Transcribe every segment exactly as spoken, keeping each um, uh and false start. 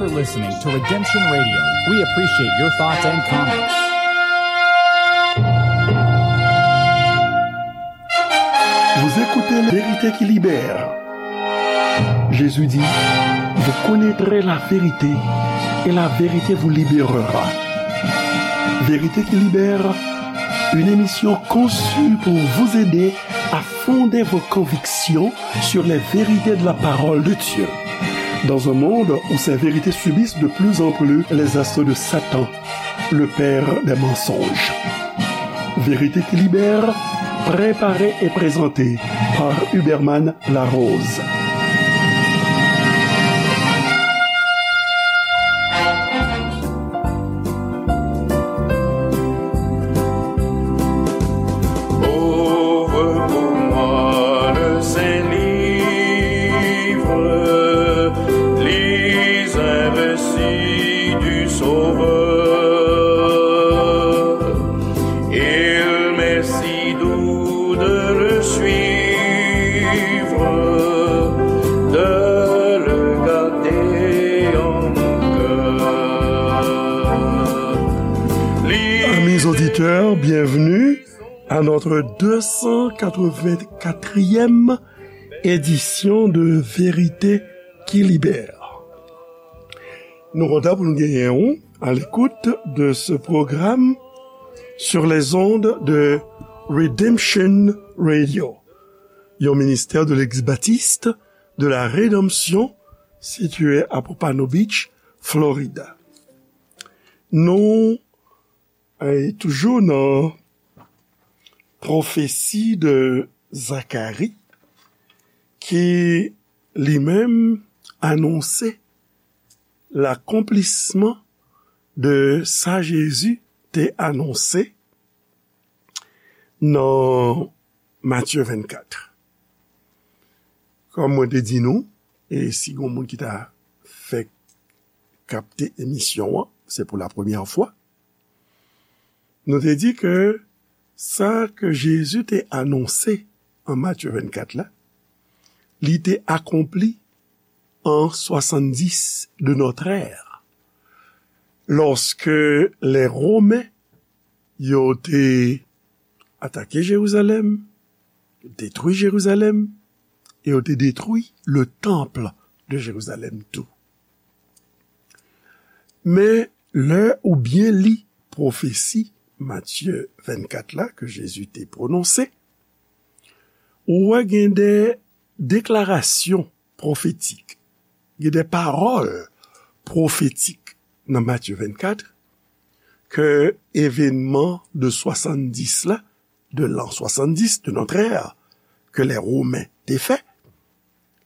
for listening to Redemption Radio. We appreciate your thoughts and comments. Vous écoutez La Vérité qui libère. Jésus dit, vous connaîtrez la vérité et la vérité vous libérera. Vérité qui libère, une émission conçue pour vous aider à fonder vos convictions sur les vérités de la parole de Dieu. Dans un monde où ces vérités subissent de plus en plus les assauts de Satan, le père des mensonges. Vérité qui libère, préparée et présentée par Huberman Larose. Ouvre pour moi le Saint-Livre, lis un récit du Sauveur. Il m'est si doux de le suivre, de le garder en mon cœur. Amis auditeurs, bienvenue à notre deux cent quatre-vingt-quatrième édition de Vérité qui libère. Nou kontan pou nou genyen ou à l'écoute de ce programme sur les ondes de Redemption Radio, yon ministère de l'Église baptiste de la Rédemption situé à Pompano Beach, Florida. Nou, eh, toujou nan pwofesi de Zakari ki li menm anonse lakonplisman de sa Jezi te anonse nan Matye vennkat. Kòm mwen te di nou, e si gon moun ki ta fèk kapte emisyon an, se pou la premyè fwa, nou te di ke sa ke Jezi te anonse an Matye vennkat la, li te akonpli an swasanndis de notre ère, lòske lè Women yo te atake Jerizalèm, detwi Jerizalèm, e yo te detwi le temple de Jerizalèm tou. Men lè ou byen li pwofesi Matye vennkat la ke Jezi te pwononse, ou wè gen de deklarasyon pwofetik, gen de pawòl pwofetik nan Matye vennkat ke evenman de swasanndis la, de l'an soixante-dix de notre ère, ke lè Women te fè,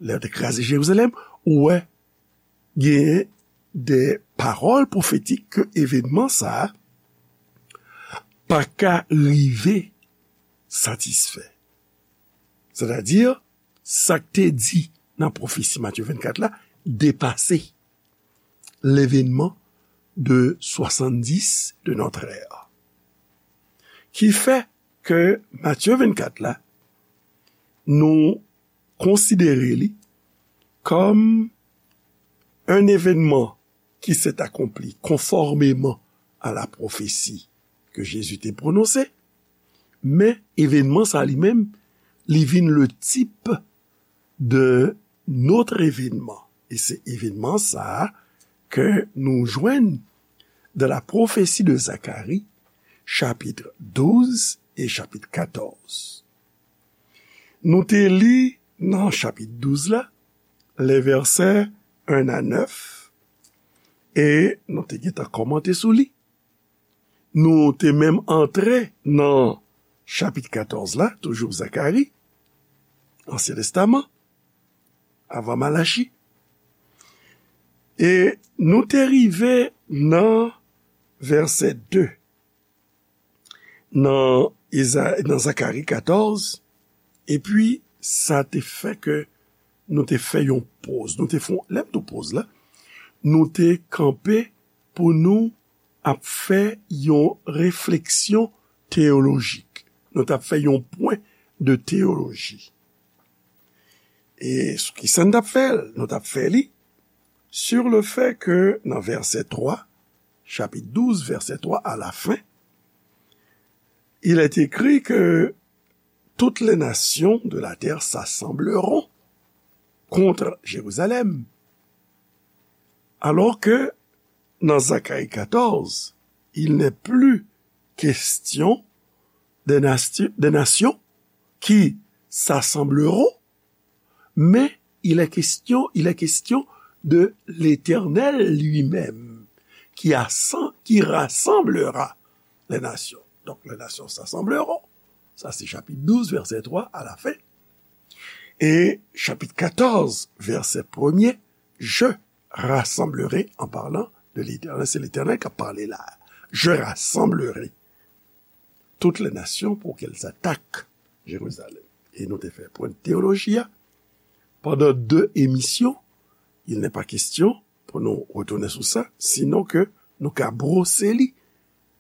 lè yo te kraze Jerizalèm, ou wè gen de pawòl pwofetik ke evenman sa a pa ka rive satisfè. Sètadi, sa k te di nan pwofesi Matye vennkat la depase l'événement de soixante-dix de notre ère. Ki fè ke Matye vennkat la, nou konsidere li kòm un événement qui s'est accompli conformément à la prophétie que Jésus te prononse, men evenman sa li menm, li vin le type de notre événement. E se evenman sa a ke nou jwenn dans la prophétie de Zacharie, chapitre douze et chapitre quatorze. Nou te li nan chapit douz la, les versets un à neuf, e nou te gentan kòmante sou li. Nou te menm antre nan chapit katòz la, toujou Zakari, Ansyen Testaman, avan Malachi. E nou te rive nan vèsè de, nan Eza-, nan Zakari katòz, epi sa te fè ke nou te fè yon poz. Nou te fè, lè m di poz la, nou te kanpe pou nou ap fè yon refleksyon teyolojik. Nou t ap fè yon pwen de teyoloji. E sou ki sa n t ap fè l? Nou t ap fè li sur le fait que nan vèsè twa, chapitre douze, verset trois, à la fin, il est écrit que toutes les nations de la terre s'assembleront contre Jérusalem. Alors que dans Zacharie quatorze, il n'est plus question des, nation- des nations qui s'assembleront, mais il est question, il est question de l'Éternel lui-même, qui, assan- qui rassemblera les nations. Donc, les nations s'assembleront. Ça, c'est chapitre douze, verset trois, à la fin. Et chapitre quatorze, verset premier, je rassemblerai, en parlant de l'Éternel, c'est l'Éternel qui a parlé là. Je rassemblerai toutes les nations pour qu'elles attaquent Jérusalem. E nou te fè pwen teyoloji a pandan de emisyon. Il n'est pas question pou nou retounen sou sa, sinon ke nou ka brose li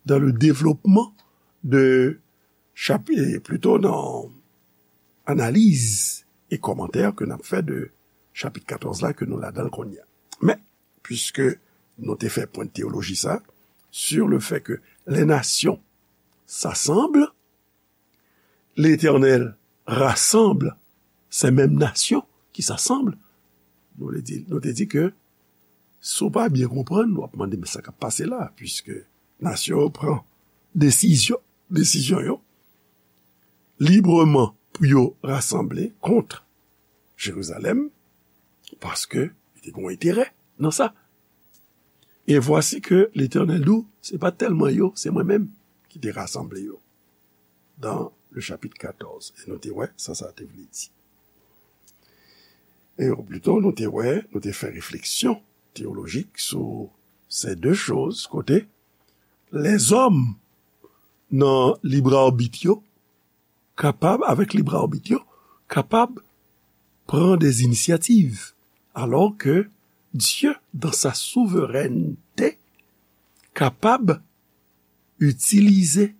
dans le développement de chapitre, plutôt dans analyse et commentaire que n ap fè de chapitre quatorze la ke nou ladan l kounye a. Men, puisque nou te fè pwen teyoloji sa, sur le fait que les nations s'assemblent, l'Éternel rassemble ces mêmes nations qui s'assemblent. Nou te di, nou te di ke si w pa byen konprann, w ap mande, men sa k ap pase la, puisque nasyon yo pran desizyon, desizyon yo libreman pou yo rasanble kont Jerizalèm, paske li te gen yon enterè nan sa. Et voici que l'Éternel di w, se pa tèlman yo, se mwen menm ki te rasanble yo. Dans le chapitre quatorze. E nou te wè sa sa te vle di. E plito nou te wè, nou te fè refleksyon teyolojik sou ces deux choses, kote lèzòm nan lib arbit yo kapab, avèk lib arbit yo, kapab pran des initiatives, alors que Dieu, dans sa souveraineté, kapab utiliser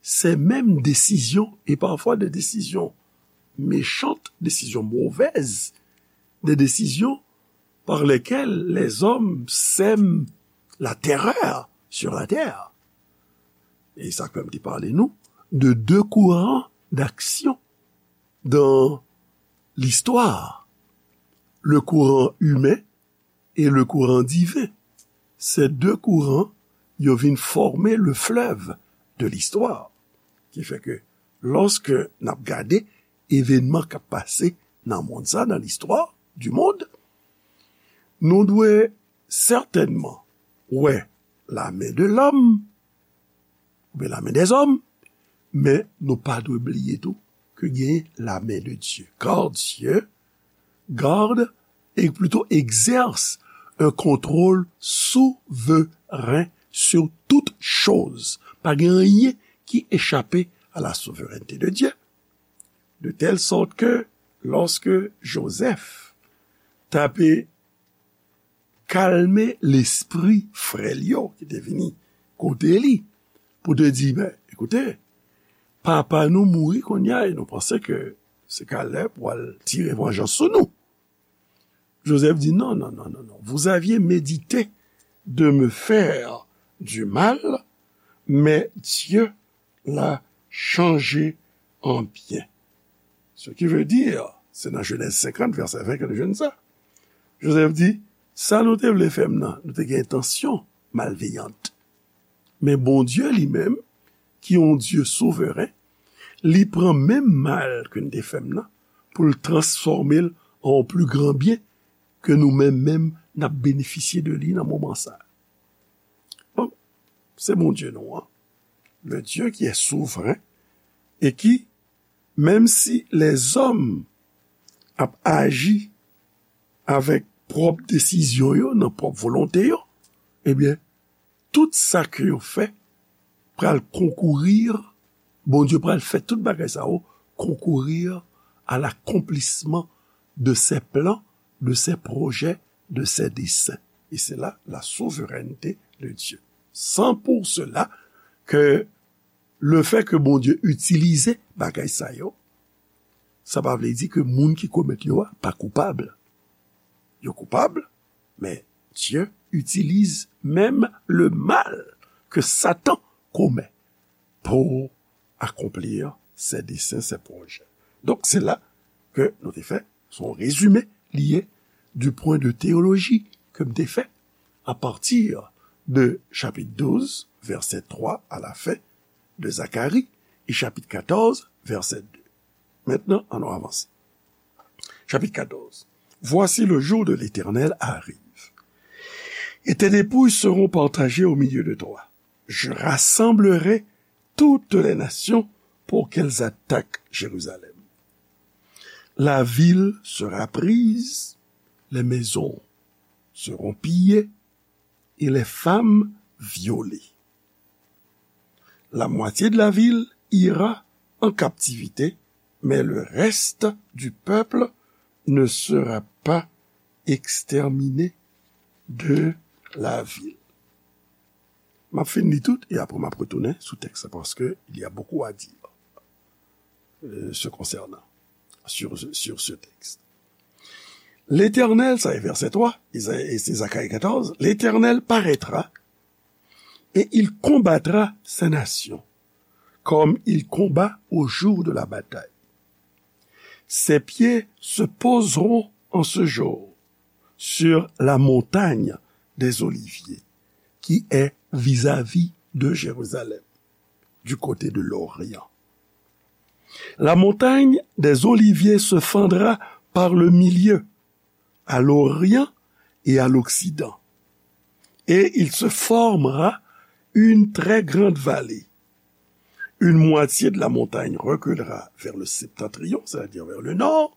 ces mêmes décisions, et parfois des décisions méchantes, décisions mauvaises, des décisions par lesquelles les hommes sèment la terreur sur la terre. E sa k fè m te pale nou de deux courants d'action dans l'histoire, le courant humain et le courant divin. Ces deux courants, yo vin forme le fleuve de l'histoire. Ki fè ke, lòske n ap gade evènman k ap pase nan mond sa, dans l'histoire du monde, nou dwe sètènman wè la main de l'homme, oubyen la main des hommes, men nou pa dwe bliye tou ke gen la main de Dieu. Car Dieu garde, et plutôt exerce un contrôle souverain sur toute chose. Pa gen anyen ki echape à la souveraineté de Dieu. De telle sorte que lorsque Joseph t ape kalme lespri frè l yo ki te vini kote li pou te di, ben, ekoute, papa nou mouri kounye a e nou panse ke se Kalèb pral tire vanjans sou nou. Joseph di, non, non, non, non, non. Vous aviez médité de me faire du mal, mais Dieu l'a changé en bien. Ce qui veut dire, se nan Jenèz senkant, vèsè ven ke nou jwenn sa. Joseph di, sa nou te vle fè m nan, nou te gen entansyon malveyant. Men Bondye li menm, ki yon Dye souveren, li pran menm mal ke n te fè m nan, pou l transfòme l an yon pli gran byen ke nou menm menm n ap benefisye de li nan moman sa. Bon, se Bondye nou an, le Dieu qui est souverain et qui, menm si lèzòm ap aji avèk pwòp desizyon yo, nan pwòp volonte yo, ebyen, tout sa ke yo fè pral konkourir, Bondye pral fè tout bagay sa yo konkourir à l'accomplissement de ses plans, de ses projets, de ses desseins. Et c'est là la souveraineté de Dieu. C'est pour cela que le fait que Bondye itilize bagay sa yo, sa pa vle di ke moun ki komèt yo a pa koupab. Yo koupab, men Dieu utilise même le mal que Satan commet pour accomplir ses desseins, ses projets. Donk, se la ke nou te fè, se yon rezime li ye du point de théologie ke m te fè à partir de chapitre douze, verset trois à la fin de Zacharie, et chapitre quatorze, verset deux. Maintenant, allons avancer. Chapitre quatorze. Voici, le jour de l'Éternel arrive, et tes dépouilles seront partagées au milieu de toi. Je rassemblerai toutes les nations pour qu'elles attaquent Jérusalem. La ville sera prise, les maisons seront pillées et les femmes violées. La moitié de la ville ira en captivité, mais le reste du peuple ne sera pas exterminé de la ville. M ap fin li tout, e apre m ap retounen sou tèks la, paske il y a beaucoup à dire, euh, se concernant, sur, sur ce texte. L'Éternel, sa e vèsè twa, e se Zacharie quatorze, l'Éternel paraîtra et il combattra sa nation, comme il combat au jour de la bataille. Ses pieds se poseront en ce jour sur la montagne des Oliviers, qui est vis-à-vis de Jérusalem, du côté de l'Orient. La montagne des Oliviers se fendra par le milieu, à l'Orient et à l'Occident, et il se formera une très grande vallée. Une moitié de la montagne reculera vers le septentrion, c'est-à-dire vers le nord,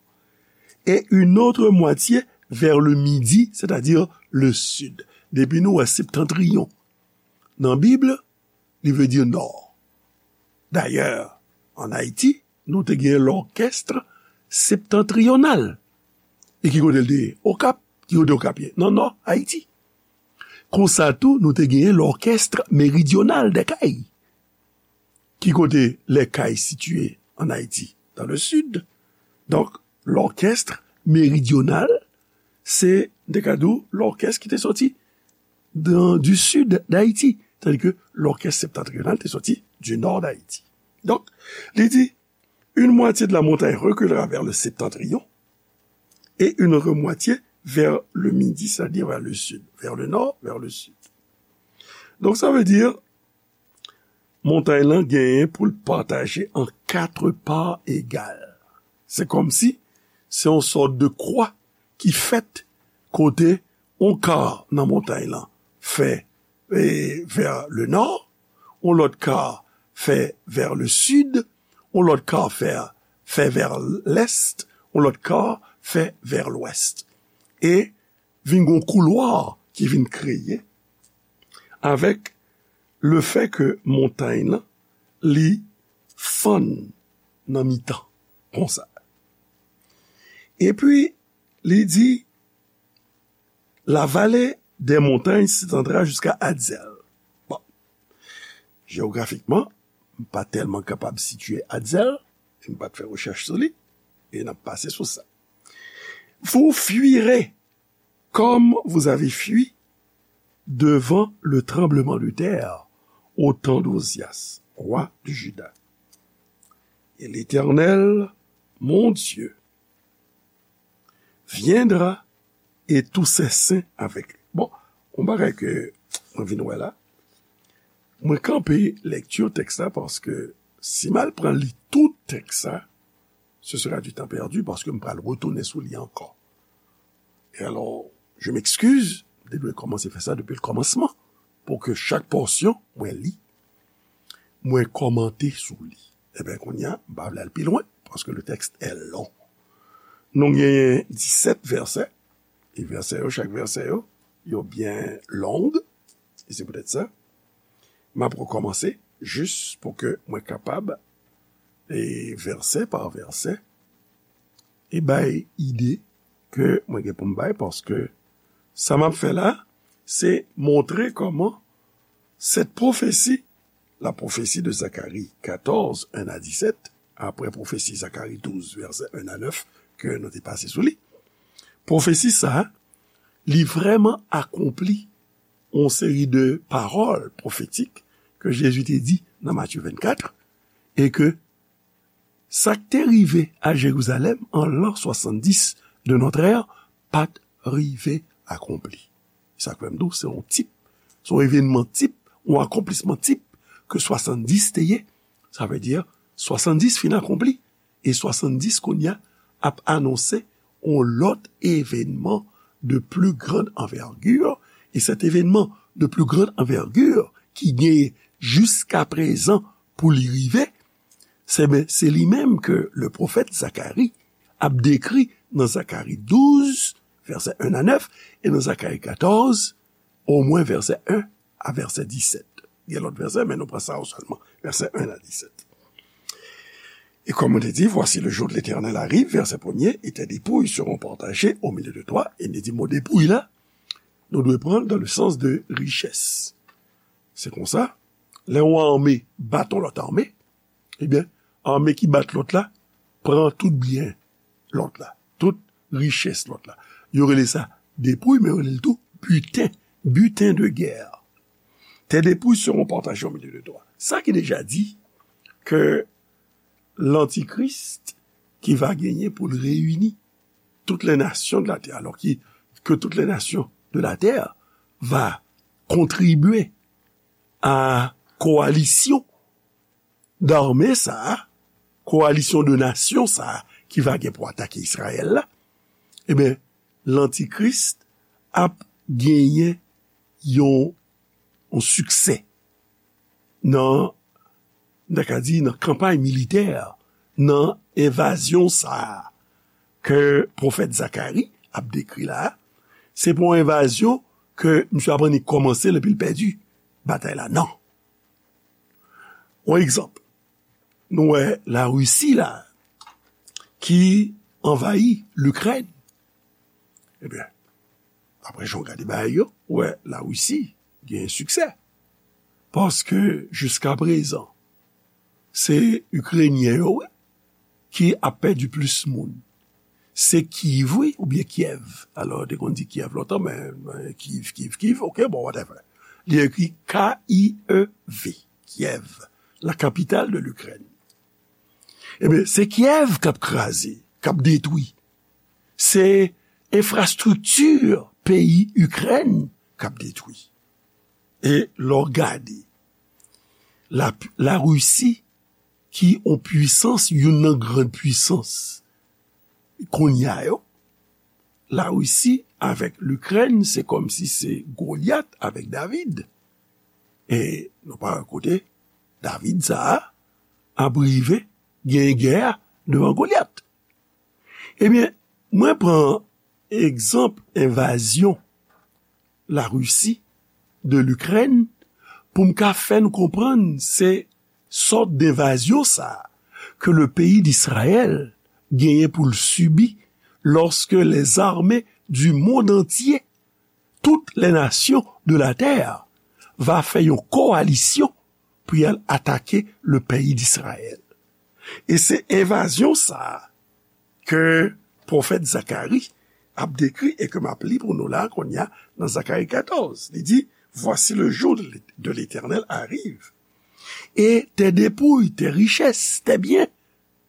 et une autre moitié vers le midi, c'est-à-dire le sud. Depi nou wè septentrion nan Bib, li vle di nò. Dayè, ann Ayiti, nou te gen l'orchestre septentrional. E ki kote l te ye? Okap. Ki kote Okap ye? Nan nò Ayiti. Konsa tou, nou te gen l'orchestre méridional des Cayes. Ki kote les Cayes sitiye ann Ayiti? Dans le sud. Donk, l'orchestre méridional, se, m te ka di w, l'orchestre ki te soti dans, du sud d'Haïti, tandis que l'orchestre septentrional te soti du nord d'Haïti. Donk, li di, une moitié de la montagne reculera vers le septentrion et une autre moitié vers le midi, c'est-à-dire vers le sud, vers le nord, vers le sud. Donk, sa vle di, montay lan genyen pou l pataje an kat pa egal. Se kòmsi se yon sòt de kwa ki fèt kote yon ka nan montay lan fè, e, vers le nord, yon lòt ka fè vers le sud, yon lòt ka fè, fè vers l'est, yon lòt ka fè vers l'ouest. E vin gon koulwa ki vin kreye avèk le fait que montay lan, li fann nan mitan, konsa. Epi, li di, la vallée des montagnes s'étendra jusqu'à Adzel. Bon, jewografikman, m pa tèlman kapab sitiye Adzel, e m pa t fè rechèch sou li, e n ap pase sou sa. Vous fuirez comme vous avez fui devant le tremblement de terre au temps d'Ozias, roi de Juda. Et l'Éternel, mon Dieu, viendra et tous ses saints avec lui. Bon, yon bagay ke mwen vin wè la, mwen kanpe lèkti tèks la paske si m al pran li tout tèks la, ce sera du temps perdu paske m pral retounen sou li ankò. E alò, je m'excuse, m te dwe kòmanse fè sa depi le kòmansman, pou ke chak pòsyon mwen li, mwen kòmante sou li. Ebyen, kounye a, m pa vle al pi lwen, paske le texte est long. Nou genyen disèt vèsè, e vèsè yo, chak vèsè yo, yo byen long, e se poutèt sa, m ap rekòmanse jis pou ke mwen kapab, e vèsè pa vèsè, e bay ide ke mwen gen pou m bay, paske sa m ap fè la, se montre kòman cette prophétie, la prophétie de Zacharie quatorze, un à dix-sept, apre pwofesi Zakari douz, vèsè un à neuf, ke nou te pase sou li. Pwofesi sa a, li vrèman akonpli yon seri de pawòl pwofetik ke Jezi te di nan Matye vennkat, e ke sa k te rive a Jerizalèm an lan swasanndis de notre ère pa t rive akonpli. Sa k fè m di w, se yon tip, se yon evènman tip, yon akonplisman tip ke swasanndis te ye. Sa vle di, swasanndis fin akonpli, e swasanndis kounye a ap anonse yon lòt evènman de plus grande envergure, e cet événement de plus grande envergure ki genyen jiska prezan pou li rive, se, ben, se li menm ke le pwofèt Zakari ap dekri nan Zakari douz, vèsè en a nèf, e nan Zakari katòz, omwen vèsè en a vèsè disèt. Gen lòt vèsè, men nou pran sa yo sèlman. Vèsè en a disèt. Et comme on te dit, voici le jour de l'Éternel arrive, verset premier, et tes dépouilles seront partagées au milieu de toi. E li di mo depouy la, nou dwe pran l dans le sens de richès. Se konsa, lè yon ame bat yon lòt ame, ebyen, ame ki bat lòt la pran tout byen lòt la, tout richès lòt la. Yo rele sa depouy, men yo rele l tou biten, butin de guerre. Tes dépouilles seront partagées au milieu de toi. Sa ki deja di ke lantikris ki va genyen pou l reyini toutes les nations de la terre, alors qui, que toutes les nations de la terre va contribuer à coalition d'armée sa a, koalisyon de nasyon sa a ki va gen pou atake Izrayèl la, ebyen, lantikris ap genyen yon, yon siksè nan, n ta ka di, nan kanpay militè, nan envazyon sa a ke pwofèt Zakari ap dekri la a. Se pa yon envazyon ke misye ap annik kòmanse l epi l pèdi batay la. Non. Yon egzanp, nou wè Larisi la ki anvayi Likrèn. Ebyen, apre jan w gade bagay yo, ou wè Larisi gen siksè. Paske jiska prezan, se Ikrenyen yo, wi, ki ap pèdi plis moun. Se Kiv, wi, oubyen Kyèv. Alò, yo te konn di Kyèv lontan, men, men Kiv, Kiv, Kiv, oke, bon, whatever. Li ekri K I E V, Kyèv, la capitale de l'Ukraine. Ebyen, se Kyèv k ap kraze, k ap detwi. Se enfrastrikti peyi Ikrèn k ap detwi. E lè w gade, la, Larisi, ki yon pwisans, youn nan gran pwisans kounye a yo, Larisi avèk Likrèn, se kòmsi se Golyat avèk David. E nou pa wè kote David sa a ap rive gen gè a devan Golyat. Ebyen, mwen pran egzanp envazyon Larisi de Likrèn pou m ka fè n konprann se sòt denvazyon sa a ke le peyi d'Israël genyen pou l sibi lorsque les armées du monde entier, toutes les nations de la terre, va fè yon kowalisyon pou y al atake le peyi d'Israël. E se envazyon sa a ke pwofèt Zakari ap dekri e ke m ap li pou nou la kounye a nan Zakari katòz. Li di, voici le jour de l'Éternel arrive, et tes dépouilles, tes richesses, tes biens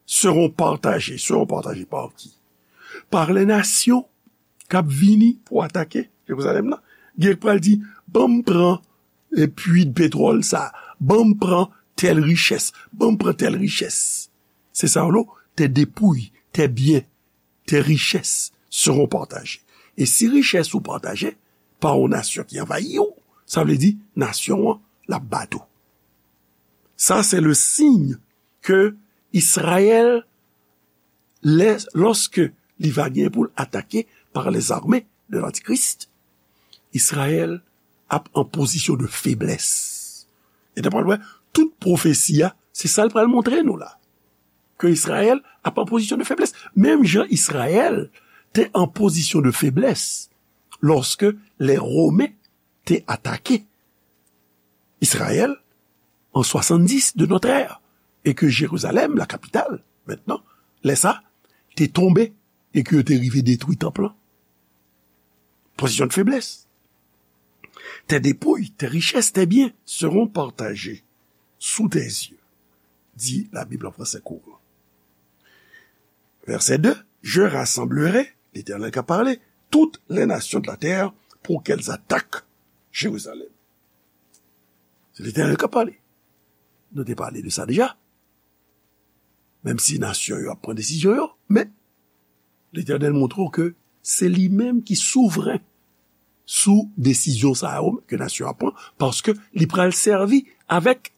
seront partagés. Seront partagés par qui? Par les nations k ap vini pou atake Jerizalèm nan. Gen k pral di, ban m pran e pui de petwòl sa, ban m pran tèl richès, ban m pran tèl richès. Se sa yo, tes dépouilles, tes biens, tes richesses seront partagés. E si richès ou pataje pa yon nasyon ki anvayi w, sa vle di nasyon an l ap bat ou. Sa se le signe ke Izrayèl, lè, lòske li va gen pou l atake par les armées de l'Antichrist, Izrayèl ap an pozisyon de feblès. E nou pral wè, tout pwofesi a, se sa l pral montre nou la. Ke Izrayèl ap an pozisyon de feblès. Menm jan Izrayèl te an pozisyon de feblès lòske lè Women te atake Izrayèl an swasanndis de notre ère, e ke Jerizalèm, la kapital, mentnan, lè sa, te tonbe, e ke yo te rive detwi tanp lan. position de faiblesse. Tes dépouilles, tes richesses, tes biens seront partagés sous tes yeux, dit la Bible en français courant. Verset deux, je rassemblerai, l'Éternel qui a parlé, toutes les nations de la terre pour qu'elles attaquent Jérusalem. Se Letènèl k ap pale. Nou te pale de sa deja. Menm si nasyon yo ap pran desizyon yo, men Letènèl montre w ke se li menm ki souvren sou desizyon sa yo ke nasyon ap pran, paske li pral sèvi avèk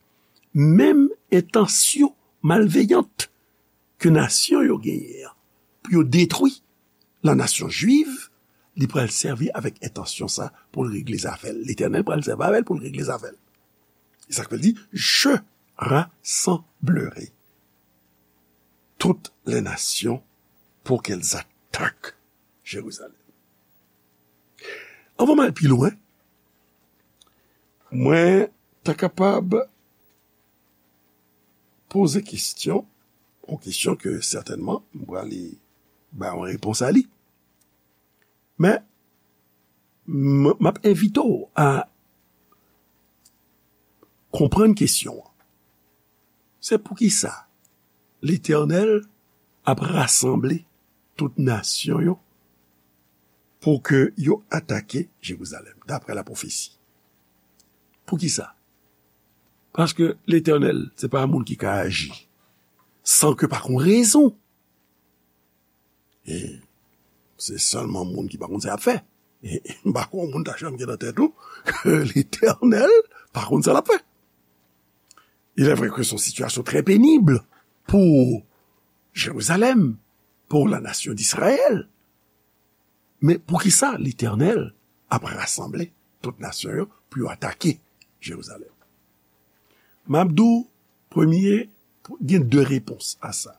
menm entansyon malveyant ke nasyon yo genyen an, pou yo detwi la nasyon jwiv, li pral sèvi avèk entansyon sa pou l regle zafè l. Letènèl pral sèvi avè l pou l regle zafè l. E sa k fè l di, je rassemblerai toutes les nations pour qu'elles attaquent Jérusalem. Anvan m al pi lwen, mwen ta kapab poze kesyon, yon kesyon ke sètènman m prale bay yon repons a li. Men, m, m ap envite w a konprann kesyon an. Se poukisa Letènèl ap rasanble tout nasyon yo pou ke yo atake Jerizalèm, daprè lapwofesi. Poukisa? Paske Letènèl, se pa moun ki ka aji san ke pa gon rezon. E se sèlman moun ki pa konn sa y ap fè. E m pa kwè yon moun ta janm gen nan tèt ou ke Letènèl pa konn sa l ap fè. Il est vrai que c'est une situation très pénible pour Jérusalem, pour la nation d'Israël. Men poukisa Letènèl ap rasanble tout nasyon yo pou yo atake Jerizalèm? M ap di w, premye, gen de repons a sa.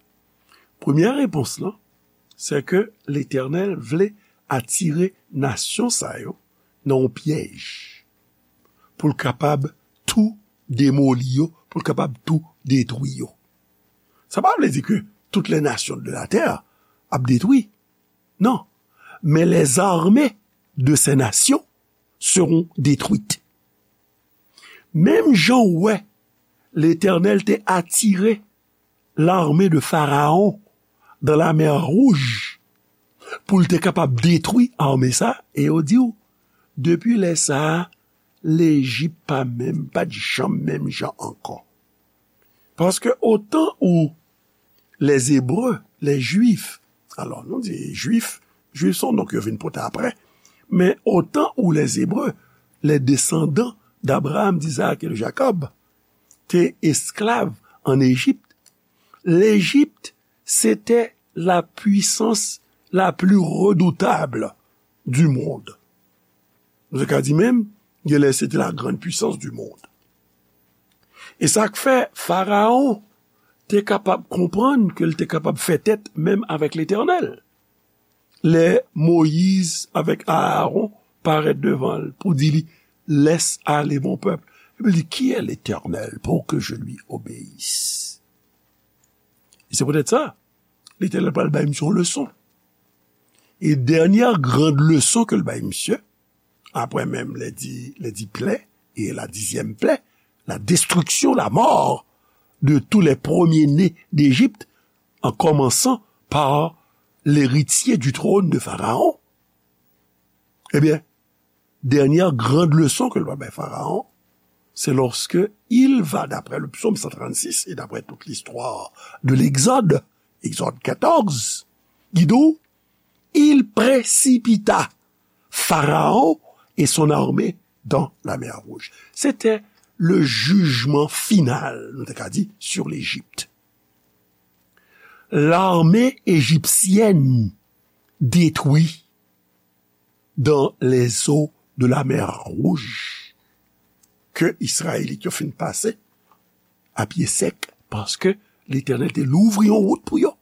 Premyè repons lan, se ke Letènèl vle atire nasyon sa yo nan yon pyèj pou l kapab tou demoli yo, pou l kapab tou detwi yo. Sa pa vle di ke toutes les nations de la terre ap detwi. Non. Men les armées de ces nations seront détruites. Menm jan w wè Letènèl te atire l'armée de Pharaon dans la mer Rouge pou l te kapab detwi ame sa, e yo di w, depi lè sa a, Lejip pa menm, pa t janm menm jan ankò. Paske otan ou les Hébreux, les Juifs, alò nou di Jwif, Jwif se yon non ke yo vin pote apre, men otan ou les Hébreux, les descendants d'Abraham, d'Isaac et de Jacob, te esklav ann Ejip, Lejip se te la puissance la plus redoutable du monde. Nou te ka di menm, genlè se te la grande puissance du monde. E sa k fè Farawon te kapab konprann ke l te kapab fè tèt menm avèk Letènèl. Lè Moyiz avèk Arawon parèt devan l pou di li, laisse aller mon peuple. Epi li, qui est l'Éternel pour que je lui obéisse? E se poutèt sa, Letènèl pral bay misye yon leson. E dènyè gran leson ke l bay misye, apre menm les dix, les dix plaies et la dixième plaie, la destruction, la mort de tous les premiers-nés d'Égypte, en commençant par l'héritier du trône de Pharaon. Ebyen, dènyè gran leson ke l va bay Farawon, c'est lorsque il va, d'après le psaume cent trente-six et d'après toute l'histoire de l'Exode, Exode quatorze, ki di w, il précipita Pharaon et son armée dans la mer Rouge. C'était le jugement final, nou te ka di, sur l'Égypte. L'armée égyptienne détruit dans les eaux de la mer Rouge, ke Izrayelit yo fin pase a pye sèk, paske Letènèl te louvri yon wout pou yo.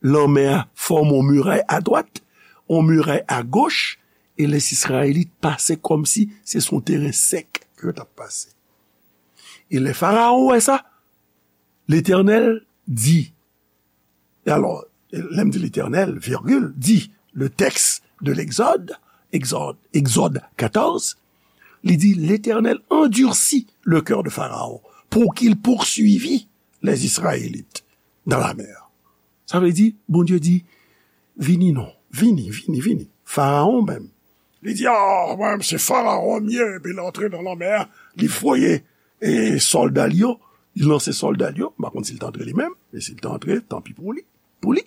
Lanmè a fòme yon miray adwat, yon miray agoch, e les Izrayelit pase kòmsi se sou yon teren sèk ke yo t ap pase. E lè Farawon wè sa, Letènèl di, e alò, lè m di Letènèl, virgule, di, le texte de l'Exode, Exode, Exode quatorze, li di, L'Éternel endurcit le cœur de Pharaon pour qu'il poursuivît les Israélites dans la mer. Sa vle di, Bondye di, vini non, vini, vini, vini. Farawon menm, li di, ah, mwen, se Farawon m ye, epi l antre nan lanmè a, li voye e sòlda l yo, li lanse sòlda l yo, m pa konn si l t antre li menm, men si l t antre, tanpi pou li, pou li.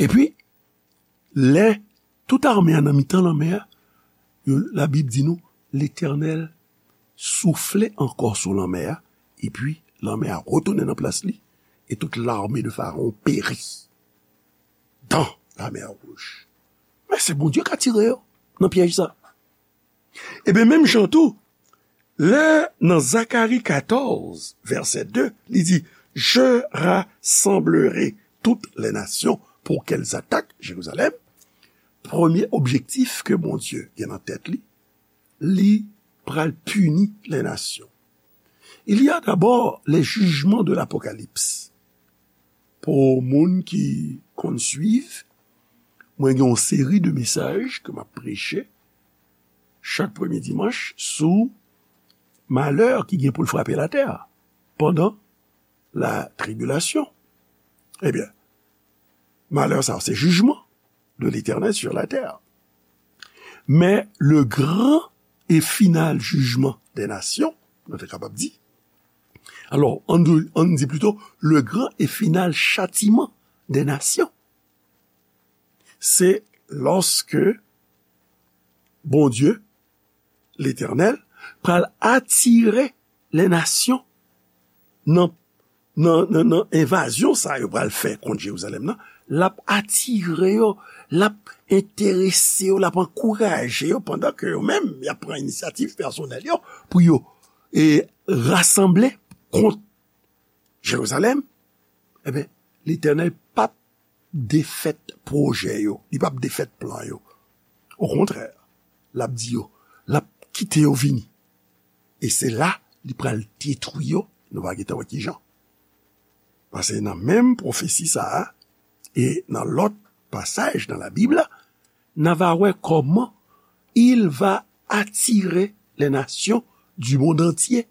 Epi, lè tout ame a nan mitan lanmè a, yo, Labib di nou, Letènèl soufle ankò sou lanmè a, epi lanmè a retounen nan plas li, et toute l'armée de Pharaon périt dans la mer Rouge. Men se Bondye k atire yo nan pyèj sa. Ebyen, menm jan tou, lè nan Zakari katòz, vèsè de, li di, Je rassemblerai toutes les nations pour qu'elles attaquent Jérusalem. Premye objektif ke Bondye gen nan tèt li, li pral pini les nations. Il y a d'abord les jugements de l'Apocalypse. Pou moun ki konn swiv, mwen gen yon seri de mesaj ke m ap preche chak premye dimanch sou malè ki gen pou l frape latè pandan la tribilasyon. Ebyen, malè sa, se jijman de Letènèl sur la terre. Men le grand et final jugement des nations, nou te kapab di. Alò, ann di, ann di plito, le grand et final châtiment des nations. Se lòske Bondye, Letènèl, pral atire les nations nan, nan, nan, nan envazyon sa yo pral fè kont Jerizalèm nan, l ap atire yo, l ap enterese yo, l ap ankouraje yo, pandan ke yo menm, y ap pran inisyativ pèsonèl yo pou yo, e, rasanble kont Jerizalèm. Ebyen, Letènèl p ap defèt pwojè yo, li p ap defèt plan yo. Okontrè, l ap di yo, l ap kite yo vini. E se la li pral detwi yo, nou va gentan wè kijan. Paske nan menm pwofesi sa a, e nan lòt pasaj nan Labib la, n a va wè kòman il va attirer les nations du monde entier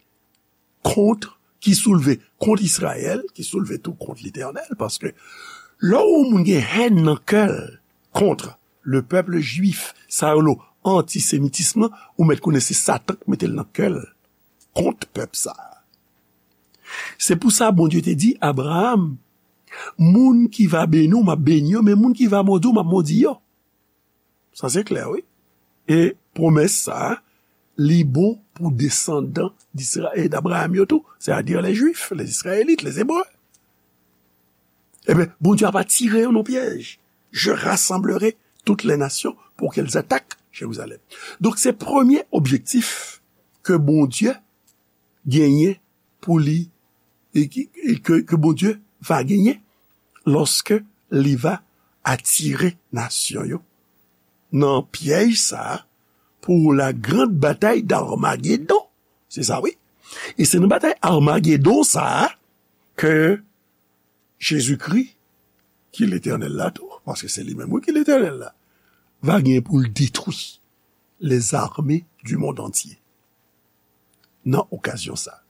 contre, ki soulve kont Izrayèl, ki soulve tou kont Letènèl, paske lè yon moun gen hèn nan kè l kont le peuple juif, sa yo rele antisemitism nan, ou mèt konnen se Satan k mete l nan kè l kont pèp sa a. Se pou sa Bondye te di Abraram, moun ki va beni w, m ap beni yo, men moun ki va modi w, m ap modi yo. Sa se klè, wi. E pwomès sa a, li bon pou desandan d'Isra-, e d'Abraham yo tou, c'est-à-dire les Juifs, les Israélites, les Hébreux. Ebyen, Bondye ap atire yo nan pyèj. Je rassemblerai toutes les nations pour qu'elles attaquent Jérusalem. Donk, se premye objektif ke Bondye genyen pou li, e ki, e ke, ke Bondye va genyen lòske li va atire nasyon yo nan pyèj sa a pou la grande bataille d'Armagedon. Se sa, wi. E se nan batay Armagedon sa a ke Jezikri, ki Letènèl la tou, paske se li menm, wi, ki Letènèl la, va gen pou l detwi les armées du monde entier. Nan okazyon sa,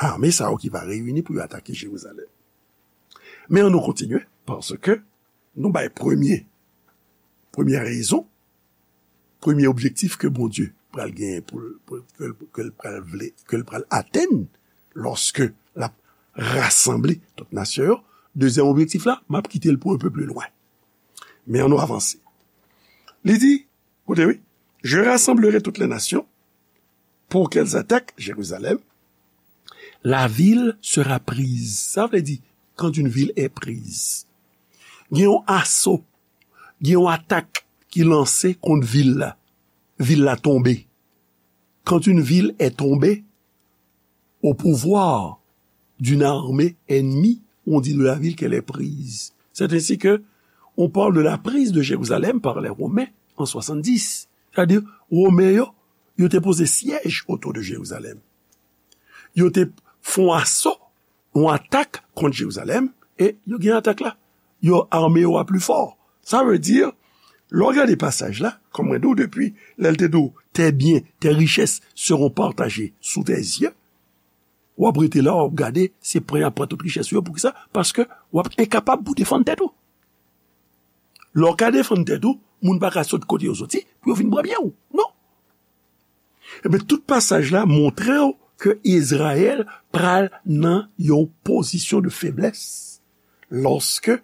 ame sa yo ki va reyini pou yo atake Jerizalèm. Men ann nou kontinye, paske nou bay premye, premyè rezon, premye objektif ke Bondye pral genyen pou, pou, ke, ke l pral vle, ke l pral atenn lòske l ap rasanble tout nasyon yo. Dezyèm objektif la, m ap kite l pou un peu plus loin. Men ann nou avanse. Li di, koute wi, Je rassemblerai toutes les nations pour qu'elles attaquent Jérusalem. La ville sera prise. Sa vle di, quand une ville est prise. Gen yon aso, gen yon atak ki lanse kont vil la. Vil la tonbe. Quand une ville est tombée au pouvoir d'une armée ennemie, on dit de la ville qu'elle est prise. C'est ainsi que on parle de la prise de Jérusalem par les Romains en soixante-dix. Sètadi, Women yo, yo te poze syèj otou de Jerizalèm. Yo te fè yon aso, yon atak kont Jerizalèm, e yo gen atak la. Yo ame yo a pli fò. Sa vle di, Lè w gade pasaj la, kòm mwen di w depi, lè l te di w, tes biens, tes richesses seront partagés sous tes yeux, w ap rete la, w ap gade, se pran y ap pran tout richès yo. Poukisa? Paske w ap enkapab pou defann tèt ou. Lè w ka defann tèt ou, moun pa ka sot kote yo soti pou yo vin pran byen w. Non. Ebyen, tout pasaj la montre w ke Izrayèl pral nan yon pozisyon de feblès lòske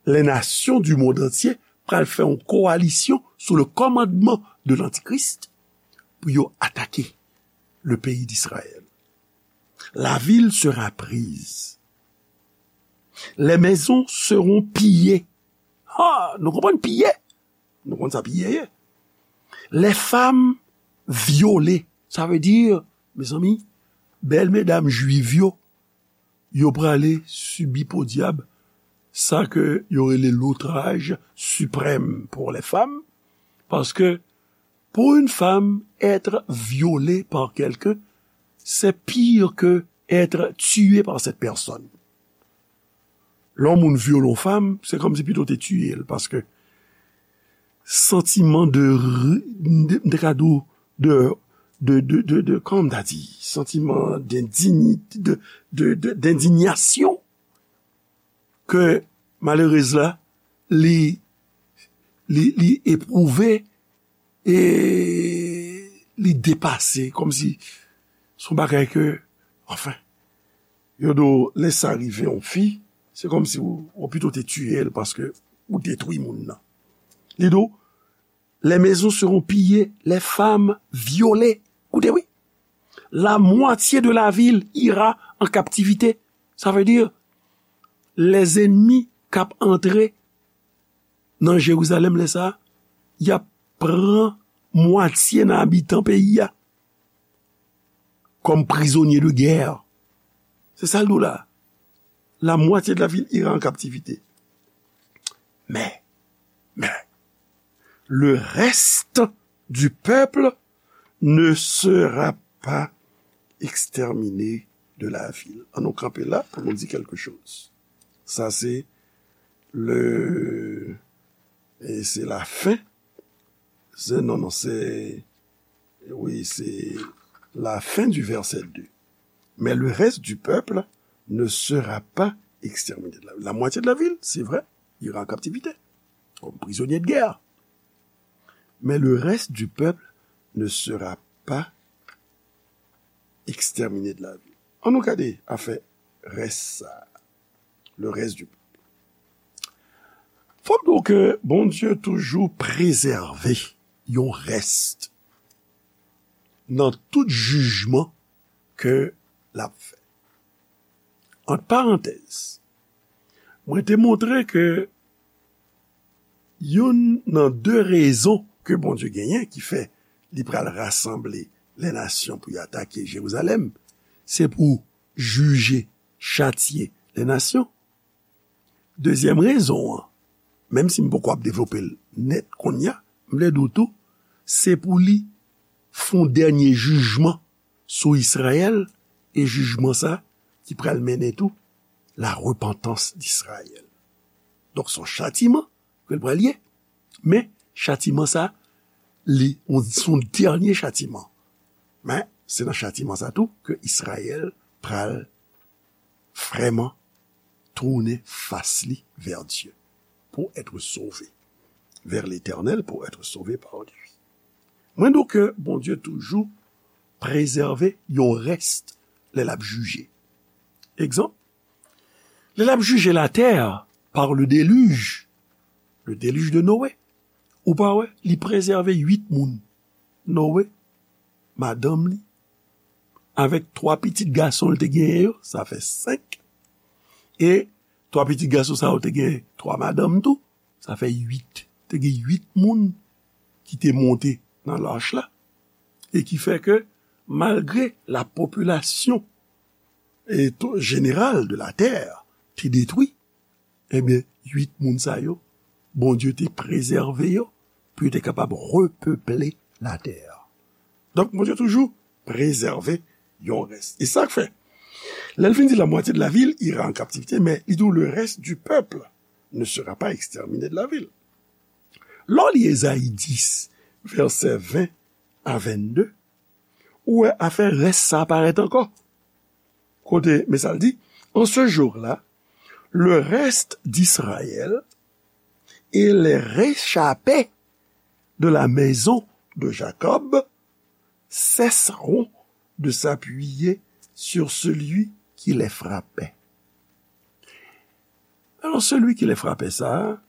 les nations du monde entier pral fè yon kowalisyon sou le kòmandman de l'Antichrist pou yo atake le pays d'Israël. La ville sera prise. Les maisons seront pillées. Ha, nou konprann piye? Nou konn sa piye ye. Les femmes violées. Sa vle di, mezanmi, bèl medam jwiv yo, yo prale sibi podyab sa ke yo rele l'outrage suprême pour les femmes, paske pour une femme, être violée par quelqu'un, c'est pire que être tué par cette personne. Lè yon moun vyole yon fanm, se kòmsi pito te tiye l, paske santiman de, de, de, de, de, de, de, de, kòman m ta di, santiman d'endini-, de, de, de, d'indignation ke malerez la, li, li, li epwouve e li depase, kòmsi se yon bagay ke, anfen, yo di w, lè sa rive yon fi, se kòmsi w, w pito te tiye l paske ou detwi moun nan. Li di w, les maisons seront pillées, les femmes violées. Koute, wi. La moitié de la ville ira en captivité. Sa vle di, lèzènmi k ap antre nan Jerizalèm lè sa a, y ap pran mwatye nan abitan peyi a kòm prizonye de gè. Se sa l di w la. La moitié de la ville ira en captivité. Mais, mais, le reste du peuple ne sera pas exterminé de la ville. An nou kanpe la pou nou di quelque chose. Sa se le, e se la fin. Se, non, non, se, wi, se la fin du verset deux. Mais le reste du peuple ne sera pas exterminé de la ville. La moitié de la ville, c'est vrai, ira en captivité, comme prisonnier de guerre. Mais le reste du peuple ne sera pas exterminé de la ville. An nou gade afè rès sa a. Le reste du peuple. Fò m di w ke Bondye toujou prezève yon rès nan tout jijman ke l ap fè. Ant parantèz, mwen te montre ke youn nan de rezon ke Bondye genyen ki fè li pral rasanble lè nasyon pou y atake Jerizalèm, se pou jije, chatye lè nasyon. Dezyèm rezon an, menm si m poko ap devlope l nèt kounye a, m vle di w tou, se pou li fè yon dènye jijman sou Izrayèl, e jijman sa ki pral mennen tou la repentance d'Israël. Donk, se yon chatiman ke l pral ye. Men, chatiman sa, li, on, se yon dènye chatiman. Men, se nan chatiman sa tou ke Izrayèl pral vrèman tounen fas li vers Dieu pour être sauvé, vers l'Éternel pour être sauvé par lui. Mwen di w ke Bondye toujou prezève yon rès lè l ap jije. Egzanp, lè l ap jije latè par le déluge, le déluge de Noé, ou pa wè, li prezève uit moun. Noé, madanm li, avèk twa pitit gason l te genyen yo, sa fè senk. E twa pitit gason sa yo te gen twa madanm tou, sa fè uit. Te gen uit moun ki te monte nan lach la, e ki fè ke malgre la popilasyon e to-, jeneral de la tè te detwi, ebyen, uit moun sa yo, Bondye te prezève yo pou yo te kapab repeple latè. Donk, Bondye toujou prezève yon rès. E sa k fè, lè l fin di la moitié de la ville ira en captivité, men li di w le reste du peuple ne sera pas exterminé de la ville. Lè w li Ezayi dis, vèsè ven a vennde, ou wè afè rès sa a parèt ankò. Kote, men sa l di, en ce jour-là, le reste d'Israël et les réchappés de la maison de Jacob cesseront de s'appuyer sur celui qui les frappait. Alò, celui qui les frappait, sa,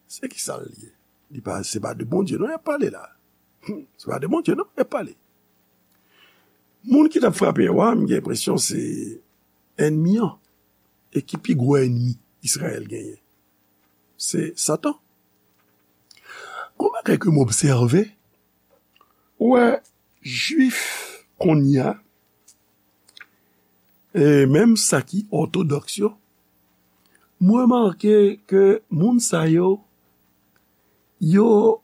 se ki sa l ye? Li pa, se pa de Bondye, non, y ap pale la. Se pa de Bondye, non, y ap pale. Moun ki t ap frape yo a, m gen enpresyon se ènmi an. E ki pi gwo ènmi Izrayèl genyen? Se Satan. Gon bagay ke m obsève, ou wè, Jwif kounye a, e menm sa ki òtodòks yo, m remake ke moun sa yo, yo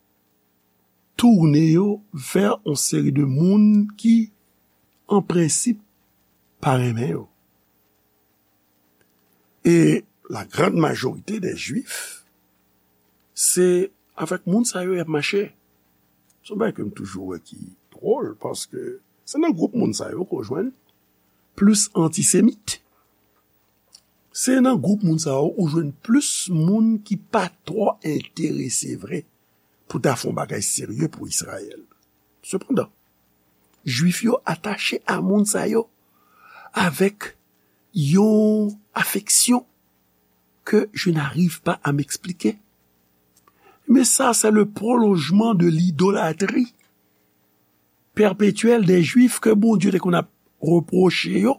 tounen yo vè yon seri de moun ki, an prensip, pa renmen yo. E la grande majorité des Juifs, se avèk moun sa yo y ap mache. Se yon bagay ke m toujou wè ki dwòl, paske se nan gwoup moun sa yo ke w jwenn plis antisemit. Se nan gwoup moun sa yo ou jwenn plis moun ki pa twò enterese vre pou ta fè yon bagay serye pou Izrayèl. Sepandan, Jwif yo atache a moun sa yo avèk yon afeksyon que je n'arrive pas à m'expliquer. Mais ça, c'est le prolongement de l'idolâtrie perpétuelle des Juifs ke Bondye te konn ap repwoche yo,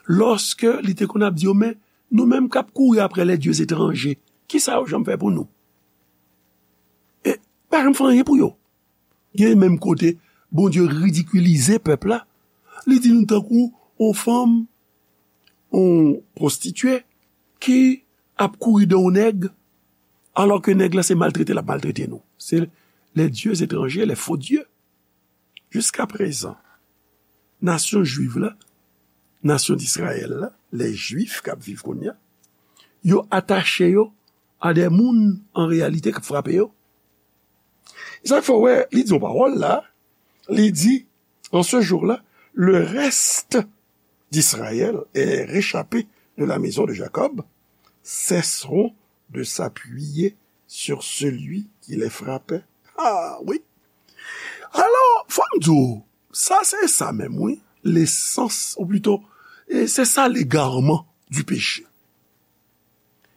lòske li te konn ap di yo, men nou menm k ap kouri apre les dieux étrangers, ki sa yo janm fè pou nou? E pa janm fè anyen pou yo. Gen menm kote Bondye ridikilize pèp la, li di nou tankou yon fanm, yon pwostitye ki ap kouri de yon nèg, alò ke nèg la se maltrete l ap maltrete nou. Se les dieux étrangers, les faux dieux. Jiskaprezan, nasyon jwiv la, nasyon Dizrayèl la, les Juifs k ap viv kounye a, yo atache yo a de moun an reyalite k ap frape yo. Sa fè w wè, li di yon pawòl la, li di, en ce jour-là, le reste d'Israël et réchappés de la maison de Jacob cesseront de s'appuyer sur celui qui les frappait. Ah wi. Alò, fò m di w, sa se sa menm, wi. Lesans, ou plito, e se sa legarman du péché.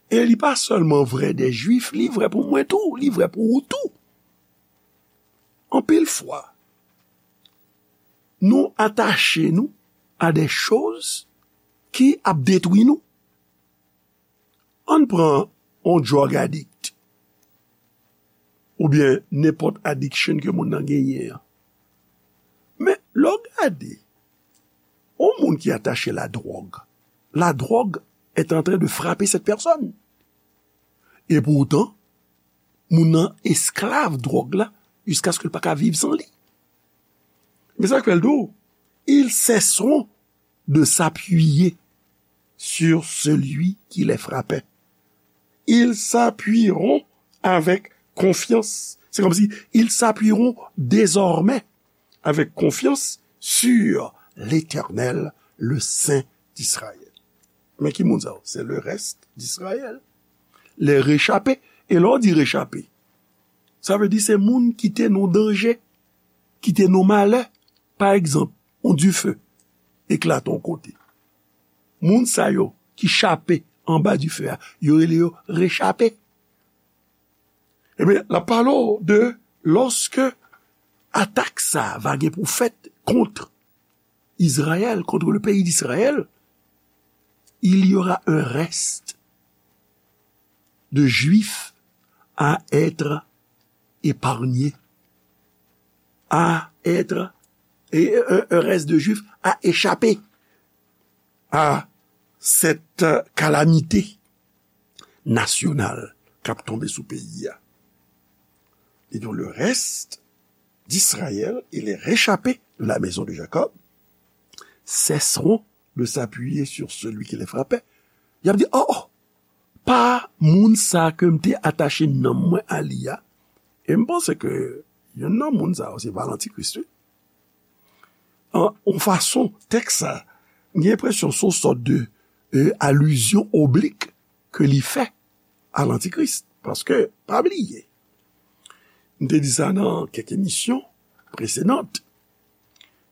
E li pa sèlman vrè de Jwif, li vrè pou mwen tou, li vrè pou ou tou. Anpil fwa, nou atache nou a de choz ki ap detwi nou. Ann pran yon drug addict, oubyen nenpòt addiction ke moun nan genyen an. Men, lè w gade, yon moun ki atache la drogue, la drogue est en train de frapper cette personne. Et pourtant, moun nan esklav dwòg la, jiskaske l pa ka viv san li. Men sa k fè l di w, ils cesseront de s'appuyer sur celui qui les frappait. Ils s'appuieront avec confiance. C'est comme si ils s'appuieront désormais avec confiance sur l'Éternel, le Saint d'Israël. Men ki moun sa yo? C'est le reste d'Israël. Les réchappés. E lè w di rechape, sa vle di se moun ki te nan danje, ki te nan malè. Pa egzanp, yon dife eklate yon kote. Moun sa yo ki chape anba dife a, yo rele yo rechape. Ebyen, l ap pale w de lòske atak sa a va gen pou fèt kont Izrayèl, contre le pays d'Israël, il y aura un reste de Juifs à être épargnés, à être, et un, un reste de Juifs à échapper à cette calamité nasyonal k ap tonbe sou peyi a. Et donc le reste d'Israël et les réchappés de la maison de Jacob cesseront de s'appuyer sur celui qui les frappait. Y ap di, oh, oh, pa moun sa ke m te atache nanm mwen a li a. E m panse ke youn nan moun sa yo se pa lantikris, wi. An, yon fason, tèks sa, m gen enpresyon se yon sòt de, e, alizyon oblik ke li fè a lantikris. Paske, pa bliye, m te di sa nan kèk emisyon presedan,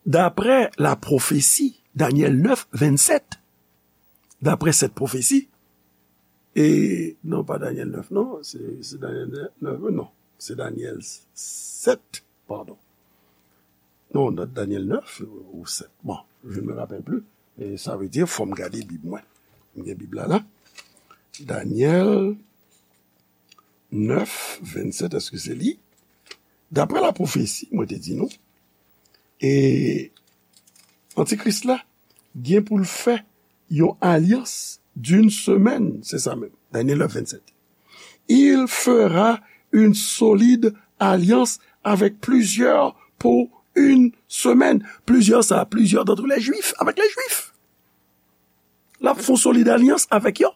daprè la pwofesi, Danyèl nèf, vennsèt, daprè sèt pwofesi, e, non, pa Danyèl nèf, non, se, se Danyèl nèf, non, se Danyèl sèt, padon. Non, Da-, Danyèl nèf ou sèt. Bon, je ne me rappelle plus. E sa vle di, fò m gade Bib mwen. M gen Bib la, la. Danyèl nèf, vennsèt, èske se li? Daprè la pwofesi, mwen te di nou, e antikris la gen pou l fè yon alyans d'une semaine, se sa menm, Danyèl nèf, vennsèt. Il fera une solide alliance avec plusieurs pour une semaine. Plizyè sa, plusieurs d'entre les Juifs, avec les Juifs. L ap fè yon solid alyans avèk yo.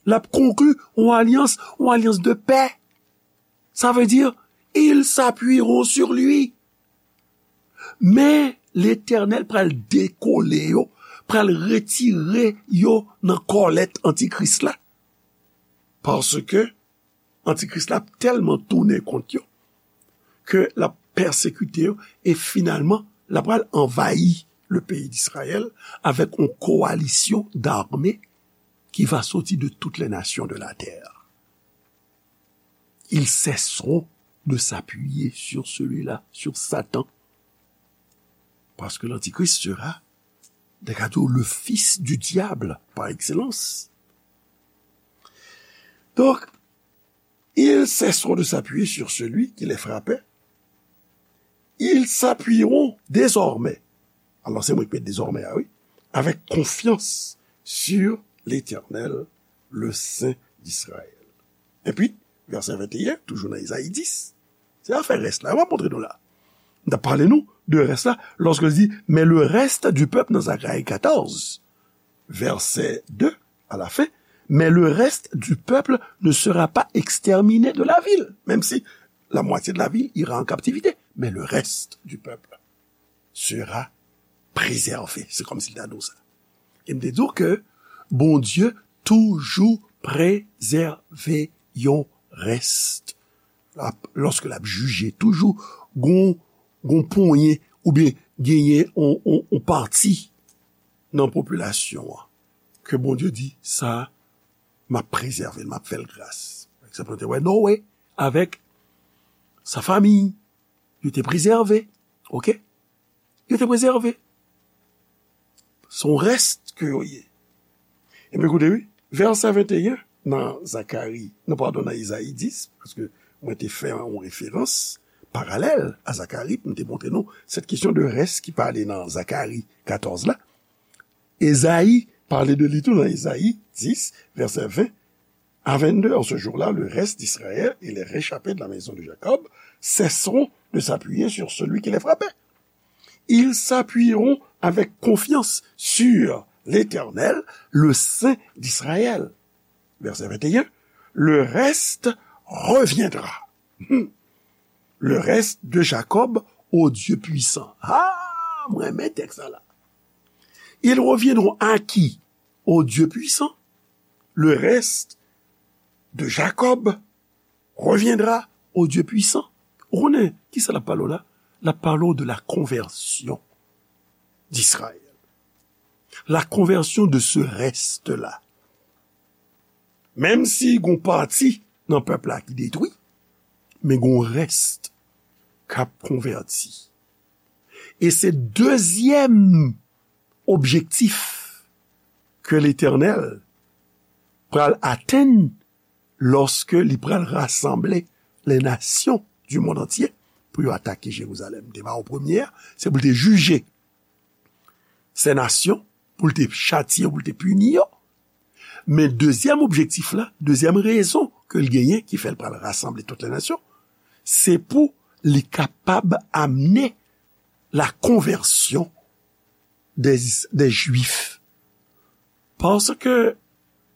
L ap konkli yon alyans, yon alyans de pè. Sa vle di, ils s'appuieront sur lui. Men Letènèl pral dekole yo, pral retire yo nan kòlèt antikris la. Paske antikris la ap tèlman tounen kont yo ke l ap pèsekite yo e finalman l ap pral anvayi le pays d'Israël avec une coalition d'armées qui va sortir de toutes les nations de la terre. Ils cesseront de s'appuyer sur celui-là, sur Satan. Parce que l'Antichrist sera, de le fils du diable par excellence. Donc, ils cesseront de s'appuyer sur celui qui les frappait. Ils s'appuieront désormais. Alors, c'est moi qui mets désormais, ah oui. Avec confiance sur l'Éternel, le Saint d'Israël. Epi, vèsè venteyen, toujou nan Ezayi dis, se afè rès la, m ap montre nou la. M t ap pale nou de rès la, lòske l di, mais le reste du peuple nan Zacharie quatorze, verset deux, à la fin, mais le reste du peuple ne sera pas exterminé de la ville, même si la moitié de la ville ira en captivité, mais le reste du peuple sera préservé. Se kòmsi l ta di w sa. E m te di w ke Bondye toujou prezève yon rès. L ap, lòske l ap jije, toujou gon, gon ponyen oubyen genyen on, on, on pati nan popilasyon an ke Bondye di, sa, m ap prezève l, m ap fè l gras. Pa egzanp, nou te wè Noe avèk sa fanmi, yo te prezève, oke? Yo te prezève. Se yon rès ke yo ye. Ebyen, koute, wi, vèsè venteyen nan Zakari, non, padon, nan Ezayi dis, paske mwen te fè yon referans paralèl a Zakari, pou m te montre nou sèt kesyon de rès ki pale nan Zakari katòz la. Ezayi pale de li tou nan Ezayi dis, vèsè ven à vingt-deux, en ce jour-là, le reste d'Israël et les réchappés de la maison de Jacob cesseront de s'appuyer sur celui qui les frappait. Ils s'appuieront avec confiance sur l'Éternel, le Saint d'Israël. Verset vingt et un, le reste reviendra. Hmm. Le reste de Jacob au Dieu puissant. Ah, mwen renmen tèks sa la. Ils reviendront à qui? Au Dieu puissant. Le reste de Jacob reviendra au Dieu puissant. Ou konnen, kisa l ap pale w la? L ap pale w de la conversion d'Israël. La conversion de ce reste-là. Menm si gon pati nan pèp la ki detwi, men gon rès k ap konvèti. E se dezyèm objektif ke Letènèl pral atenn lòske li pral rasanble les nations du monde entier pou yo atake Jerizalèm. Te ba w premye a, se pou l te jije sè nasyon, pou l te chatye yo, pou l te pini yo. Men dezyèm objektif la, dezyèm rezon ke l genyen ki fè l pral rasanble tout les nations, se pou li kapab amne la konvèsyon des, des Juifs. Paske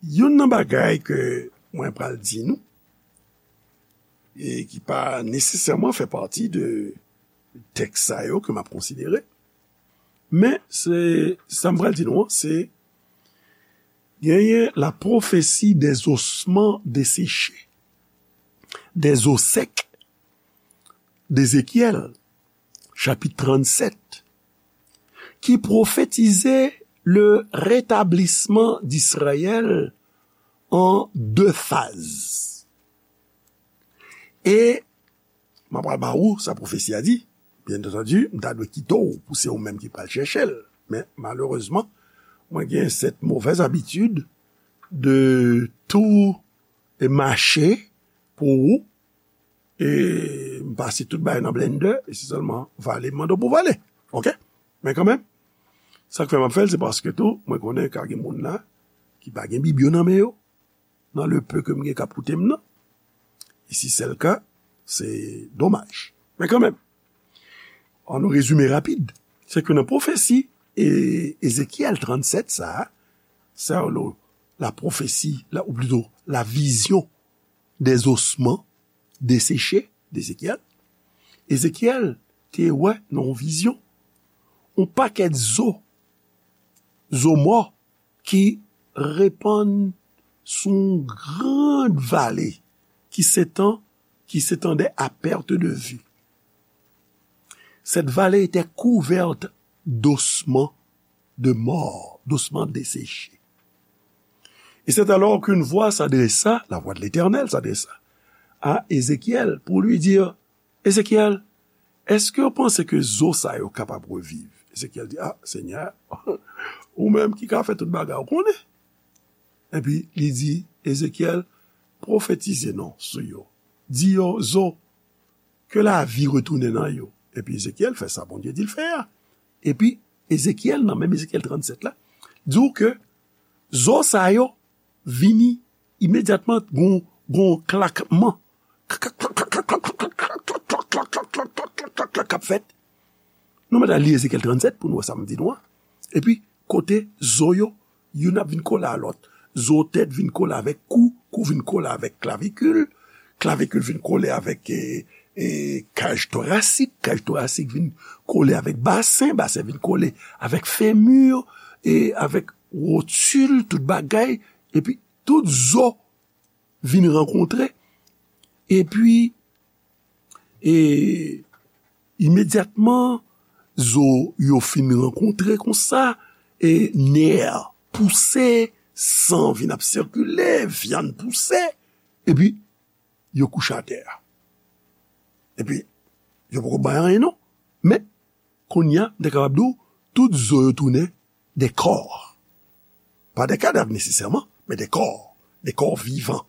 Youn nan bagay ke mwen pral di nou, e ki pa nesesèman fè pati de tèks sa yo ke m ap konsidere, men se, sa m pral di nou an, se genyen la prophétie des ossements desséchés, des os secs d'Ézéchiel, chapit trannsèt, ki pwofetize le rétablissement d'Israël en deux phases. E m ap pral ba ou sa pwofesi a di. Byen antandi, m ta dwe kite w pou se ou menm ki pral chèche l. Men, malerezman, mwen gen cette mauvaise habitude de tout mache pou ou, e m pase tout bagay nan blender, e se sèlman vale m mande w pou vale. Oke? Men kanmenm, sa k fè m ap fè l, se paske tou, mwen konnen ka gen moun la ki pa gen Bib yo nan men yo, nan le peu ke m gen k ap koute m nan. E si se le ka, se domaj. Men kanmenm, an nou rezime rapid, se ke nan pwofesi e Ezekyèl trannsèt sa a, sa yo la pwofesi, la, ou plito la vision des ossements desséchés d'Ézéchiel, Ezekyèl te wè nan yon vizyon yon pakèt zo, zo mò ki repann sou yon gran vale qui s'étend, qui s'étendait à perte de vue. Cette vallée était couverte d'ossements de morts, d'ossements desséchés. Et c'est alors qu'une voix s'adressa, la voix de l'Éternel s'adressa à Ézéchiel pour lui dire, Ezekyèl, èske w panse ke zo sa yo kapab reviv? Ezekyèl di, a, Senyè, ou menm ki ka fè tout bagay, ou konnen. Epi li di, Ezekyèl, pwofetize non sou yo. Di yo, zo, ke lavi retounen nan yo. Epi Ezekyèl fè sa Bondye di l fè a. Epi Ezekyèl, nan menm Ezekyèl trannsèt la, di w ke zo sa yo vini imedyatman, gon, gon klakman k ap fèt. Nou mèt al li Ezekyèl trannsèt pou nou wè sa m di nou an. Epi, kote zo yo, youn ap vin kole a lòt. Zo tèt vin kole avèk kou, kou vin kole avèk klavikil, klavikil vin kole avèk, e, e, kaj torasik, kaj torasik vin kole avèk basen, basen vin kole avèk femur, e avèk wotil, tout bagay, epi tout zo vin rankontre, epi, e, imedyatman, zo yo fin rankontre konsa, e nè pouse, san vin ap sikile, vyann pouse, epi yo kouche atè a. Epi, yo poko bay anyen non. Men, kounye a, m te kapab di w, tout zo yo tounen de kò. Pa de kadav nesesèman, men de kò. De kò vivan,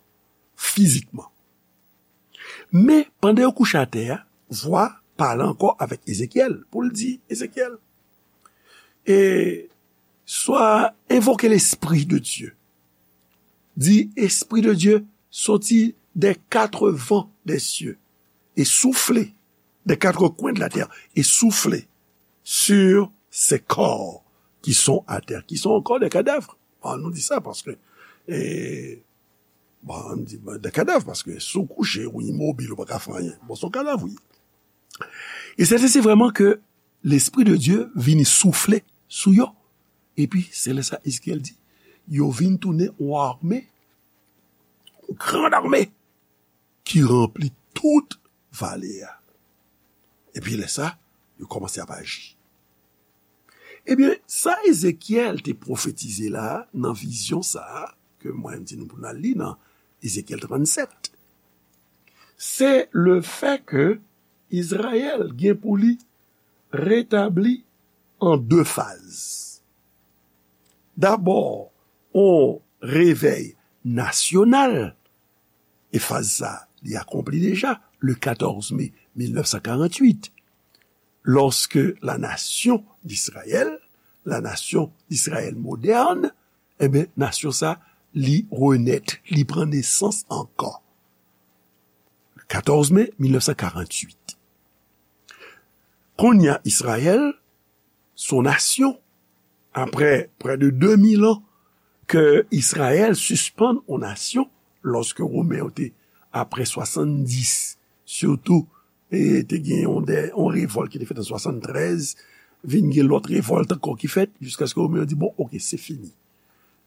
fizikman. Men, pandan yo kouche atè a, vwa pale ankò avèk Ezekyèl, pou l di, Ezekyèl, e swa envoke Lespri de Dye. Di, Espri de Dye, soti des quatre vents des cieux, e soufle, des quatre coins de la terre, e soufle sur ces corps qui sont à terre, qui sont encore des cadavres. Bon, nou di sa paske, e, bon, nou di, bon, des cadavres, paske si w kouche, ou imobil, ou pa ka fè anyen. Bon, se yon kadav, wi. E se, se vrèman ke Lespri de Dye vini soufle sou yo. Epi, se lè sa Ezekyèl di, yo vin tounen yon ame, yon gran ame, ki ranpli tout vale a. Epi lè sa, yo kòmanse ap aji. Ebyen, sa Ezekyèl te pwofetize la, nan vizyon sa a, ke mwen di nou pou n al li nan Ezekyèl trannsèt, se le fè ke Izrayèl gen pou li retabli an de faz. Dabò, on revèy nasyonal, e faz sa, li akonpli deja, le quatorze mai mille neuf cent quarante-huit, lorsque la nation d'Israël, la nation d'Israël moderne, ebyen, nasyon sa, li renèt, li pran nesans ankò. Quatorze mai mille neuf cent quarante-huit. Kounye a, Izrayèl, se yon nasyon, apre près de deux mille ans ke Izrayèl sispann yon nasyon lòske Women yo te, apre swasanndis, sitou, e te gen yon, de, yon revòlt ki te fèt an swasanntrèz, vin gen lòt revòlt ankò ki fèt, jiskaske Women yo di, bon, oke, se fini.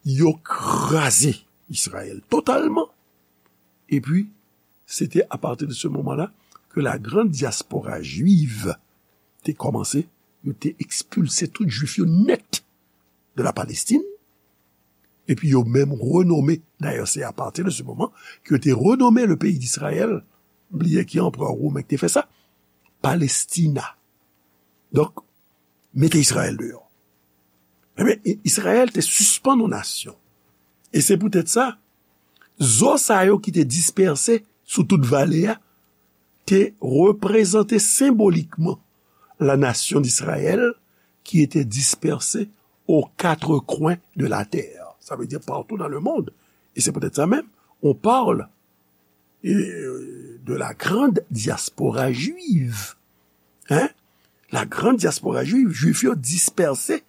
Yo kraze Izrayèl totalman. Epi, se te apati de se moman la ke la grande diaspora juive te kòmanse, yo te ekspilse tout Jwif yo nèt de la Palestine, epi yo menm renome, dayè se apati de se moman ke yo te renome le peyi d'Israël, bliye ki anperè women ki te fè sa, Palestina. Donk, mete Izrayèl deyò. Ebyen, Izrayèl te sispann yon nasyon. E se poutèt sa, zo sa yo ki te dispèse sou tout vale a, te reprezante senbolikman la nation d'Israël qui était dispersée aux quatre coins de la terre. Ça veut dire partout dans le monde. Et c'est peut-être ça même, on parle euh, de la grande diaspora juive. Hein? La grande diaspora juive, Jwif yo dispèse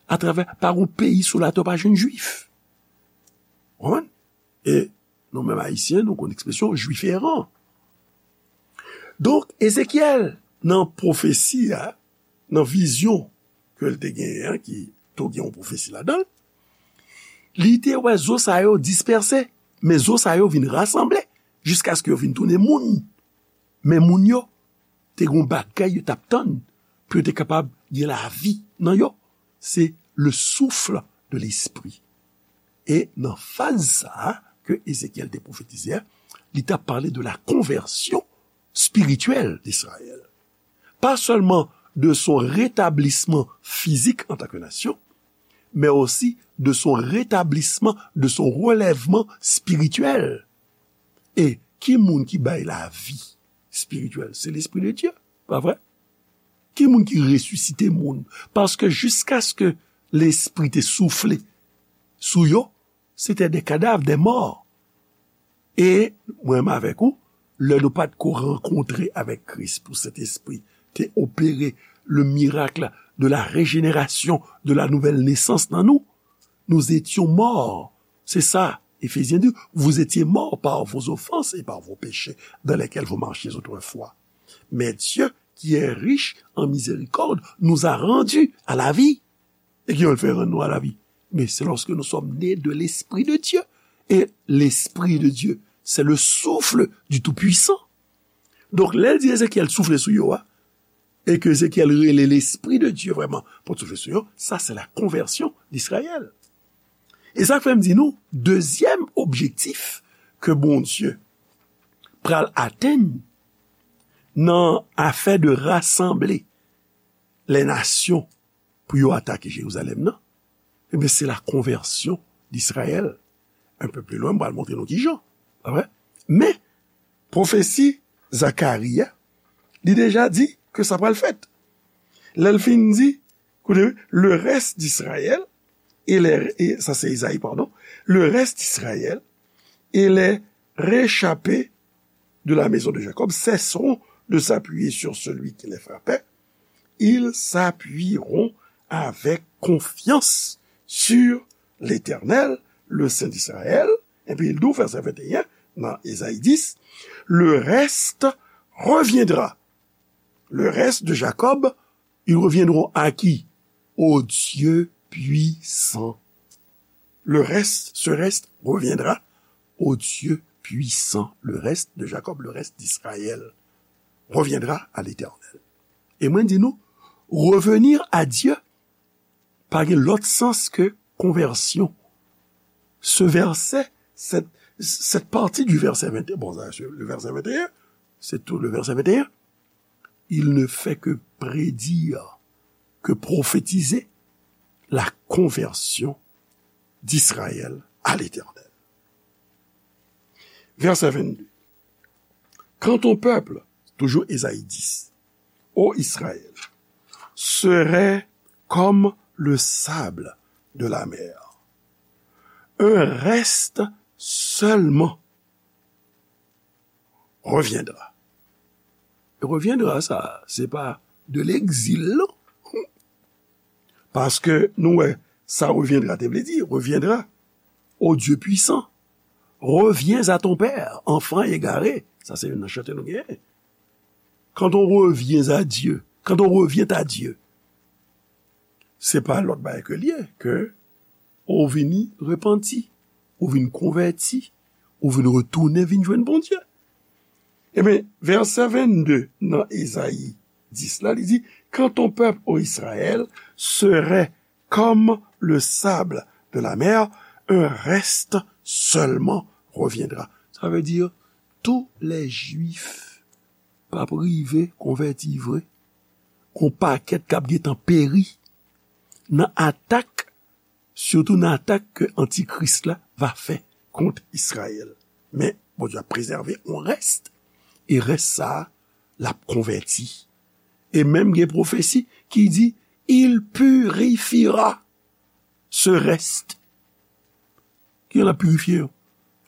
atravè, pa yon peyi sou latè pa jwenn Jwif. Konprann? E nou menm Ayisyen, nou konn ekspresyon Jwif eran. Donk, Ezekyèl, nan pwofesi a, nan vizyon ke l te genyen an, ki tou gen yon pwofesi ladan l, li te wè zo sa yo dispèse, men zo sa yo vin rasanble jiskaske yo vin tounen moun. Men moun yo te gen yon bagay yo t ap tann pou yo te kapab gen lavi nan yo. Se le souffle de l'esprit. E nan faz sa a ke Ezekyèl te pwofetize a, li t ap pale de la conversion spirituelle d'Israël. Pas seulement de son rétablissement physique en tant que nation, mais aussi de son rétablissement, de son relèvement spirituel. E ki moun ki bay lavi espirityèl? Se Lespri de Dye, pa vre? Ki moun ki resisite moun? Paske jiskaske Lespri te soufle sou yo, se te de kadav, de mò. E mwen menm avèk ou, lè nou pa t ko rankontre avèk Kris pou Sentespri te opere le miracle de la régénération, de la nouvelle naissance nan nou, nous étions morts. C'est ça, Éphésiens dit, vous étiez morts par vos offenses et par vos péchés dans lesquels vous marchiez autrefois. Mais Dieu, qui est riche en miséricorde, nous a rendus à la vie. E ki jan l fè rann nou a lavi? Men se lòske nou sòm ne de Lespri de Dye. E Lespri de Dye, se le souffle du Tout-Puissant. Donk, lè l di Ezekyèl soufle sou yo a, e ke Ezekyèl rele Lespri de Dye vrèman pou l soufle sou yo, sa se la konvèsyon d'Israyèl. E sa k fè m di nou, dezyèm objektif ke Bondye pral atenn nan afè de rasanble lè nasyon pou yo atake Jerizalèm nan, ebyen, se la konvèsyon d'Israyèl. Un peu plus loin, m pral montre nou ki jan. Pa vre? Men, pwofesi Zakari a, li deja di ke sa pral fèt. Lè l fin di, koute, le reste d'Israël, et les, et, sa se Ezayi, pardon, le reste d'Israël et les réchappés de la maison de Jacob cesseront de s'appuyer sur celui qui les frappait, ils s'appuieront avec confiance sur l'Éternel, le Saint d'Israël. Epi l di w, vèsè venteyen, nan Ezayi dis, le reste reviendra. Le reste de Jacob, ils reviendront à qui? Au Dieu puissant. Le reste, ce reste reviendra au Dieu puissant. Le reste de Jacob, le reste d'Israël reviendra à l'Éternel. E mwen di nou, revenir à Dieu pa gen lòt sans ke konvèsyon. Ce verset, cette, cette partie du verset vingt et un, bon, ça, c'est le verset vingt et un, c'est tout le verset vingt et un. Il ne fait que prédire, que prophétiser la conversion d'Israël à l'Éternel. Verset vingt-deux. Quand ton peuple, toujours Ésaïe dix, ô Israël, serait comme le sable de la mer. Un reste seulement reviendra. Reviendra, sa, se pa de l'exil, non. Paske nou wè, sa reviendra te vle di, reviendra. Ô Dieu puissant, reviens à ton Père, enfant égaré. Sa se youn nan chante nou genyen. Quand on revient à Dieu, quand on revient à Dieu, se pa lòt bagay ke l ye, ke ou vini repanti, ou vin konvèti, ou vin retounen vin jwenn Bondye. Ebyen, vèsè vennde nan Ezayi dis la, li di, quand ton peuple, ô Israël, serait comme le sable de la mer, un reste seulement reviendra. Sa vle di, tout lè Jwif p ap rive konvèti vre, gon pakèt k ap gentan peri nan atak, sitou nan atak ke Antikris la va fè kont Izrayèl. Men, Bondye ap prezève yon rès, e rès sa a, l ap konvèti. E menm gen pwofesi ki di, il purifiera ce reste. Kijan l ap pirifye yo?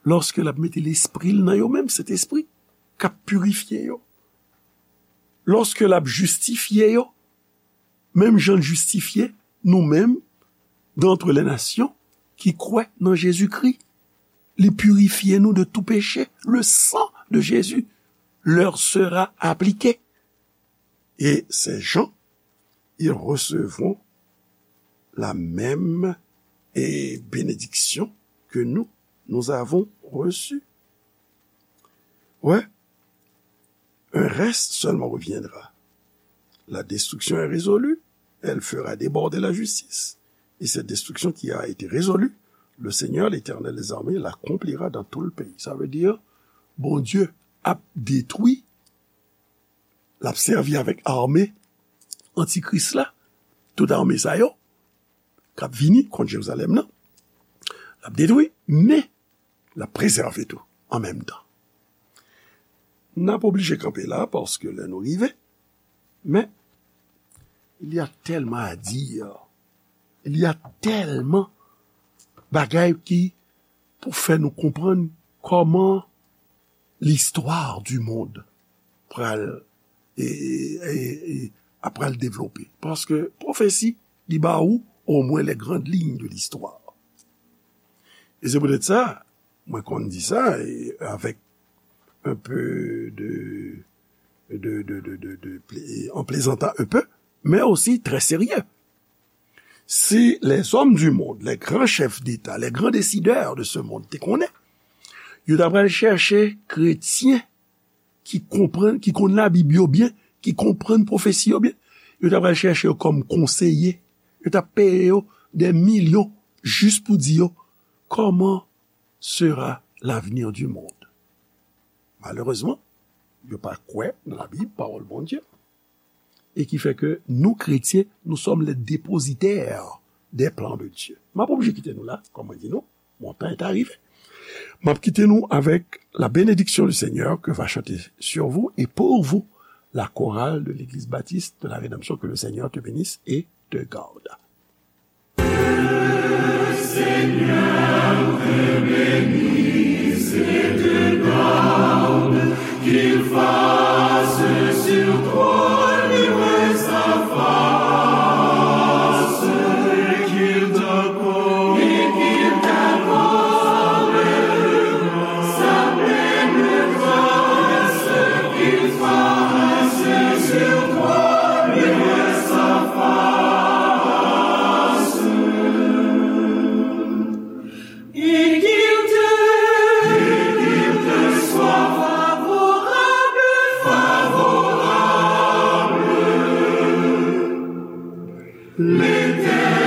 Lòske l ap mete lespri l nan yo menm, Sentespri, k ap pirifye yo. Lòske l ap jistifye yo, menm jan l jistifye nou menm, d'entre les nations, ki kwè nan Jezikri. Li pirifye nou de tout péché. Le sang de Jésus leur sera appliqué. Et ces gens, ils recevront la même, eh, bénédiction que nous, nous avons reçue. Ouais. Un reste seulement reviendra. La destruction est résolue, elle fera déborder la justice. Et cette destruction qui a été résolue, le Seigneur, l'Éternel des armées, l'accomplira dans tout le pays. Sa vle di, Bondye ap detwi, l ap sèvi avèk ame antikris la, tout ame sa yo, k ap vini kont Jerizalèm nan, l ap detwi, men l ap prezève tou an menm tan. N ap oblije kanpe la, paske lè nou rive, men, il y a tellement à dire, il y a tellement bagay ki pou fè nou konprann kòman l'histoire du monde pral, e, e, e, ap pral devlope. Paske pwofesi, li ba ou omwen les grandes lignes de l'histoire. E se poutèt sa, mwen konn di sa, e avèk un peu de, de, de, de, de, de plé-, en plaisantant un peu, men osi trè serye. Si les hommes du monde, les grands chefs d'État, les grands décideurs de ce monde te konnen, yo ta pral chèche kretyen ki konprann, ki konn Labib yo byen, ki konprann pwofesi yo byen, yo ta pral chèche yo kòm konseye. Yo ta peye yo des millions jis pou di yo, comment sera l'avenir du monde? Malerezman, yo pa kwè nan Labib, pawòl Bondye. E ki fè ke nou, kretyen, nous sommes les dépositaires des plans de Dieu. M ap oblije kite nou la, kòm mwen di nou, mon temps est arrivé. M ap kite nou avec la bénédiction du Seigneur que va chanter sur vous et pour vous la chorale de l'Église Baptiste de la Rédemption. Que le Seigneur te bénisse et te garde. Qu'il fasse sur toi luire sa face, et qu'il t'accorde, et qu'il t'accorde sa pleine grâce, qu'il fasse sur toi luire sa face. Et qu'il te, et qu'il te soit favorable, favorable. L'Éternel